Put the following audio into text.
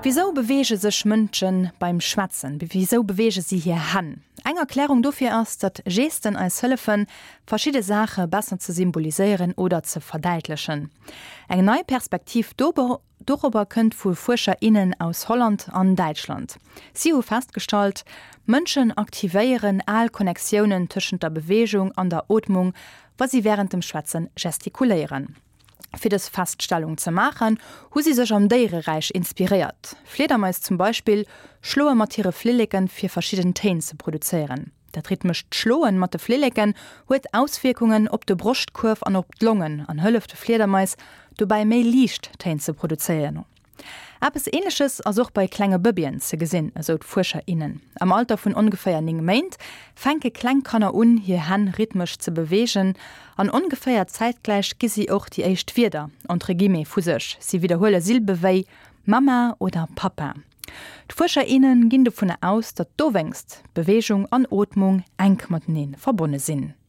Wisou beweege sech Mënsche beim Schwätzen? Wisou beweege si hir Hänn? Eng Erklärung dofir ass, datt Gesten eis hëllefen, verschidde Saache besser ze symboliséieren oder ze verdäitlechen. Eng nei Perspektiv dorobber kënnt vu Fuerscher, innen aus Holland an Däitschland. Si hu festgestallt, Mënschen aktivéieren al Connectiounen tëschent der Beweegung an der Ootmung, wa si wärend dem Schwätze gestikuléieren. Fir dës Feststellung ze maachen, hu si sech am Déiereräich inspiréiert. Fliedermais zum Beispill schloe mat hire Flilleken, fir verschidden Téin ze produzéieren. Dat rhythmescht Schloen mat de Flilleken huet Auswierkungen op de Broschtkuerf an op d'Longen an hëlleft de Fliedermais dobäi méi liicht Téin ze produzéieren. Eppes Ähnleches ass och bei klenge Bëbeen ze gesinn, esou d'Fuerscher, innen. Am Alter vun ongeféier 9 Méint fänke kleng Kanner un, hir Hänn rhythmesch ze beweegen an ongeféier zäitgläich gi si och déi éischt Wierder, entre guillemets, vu sech, si widderhuele Silbe wéi Mama oder Papa. D'Fuerscher, innen ginn dovunner aus, datt dowéinst Beweegung an Ootmung enk matenee verbonne sinn.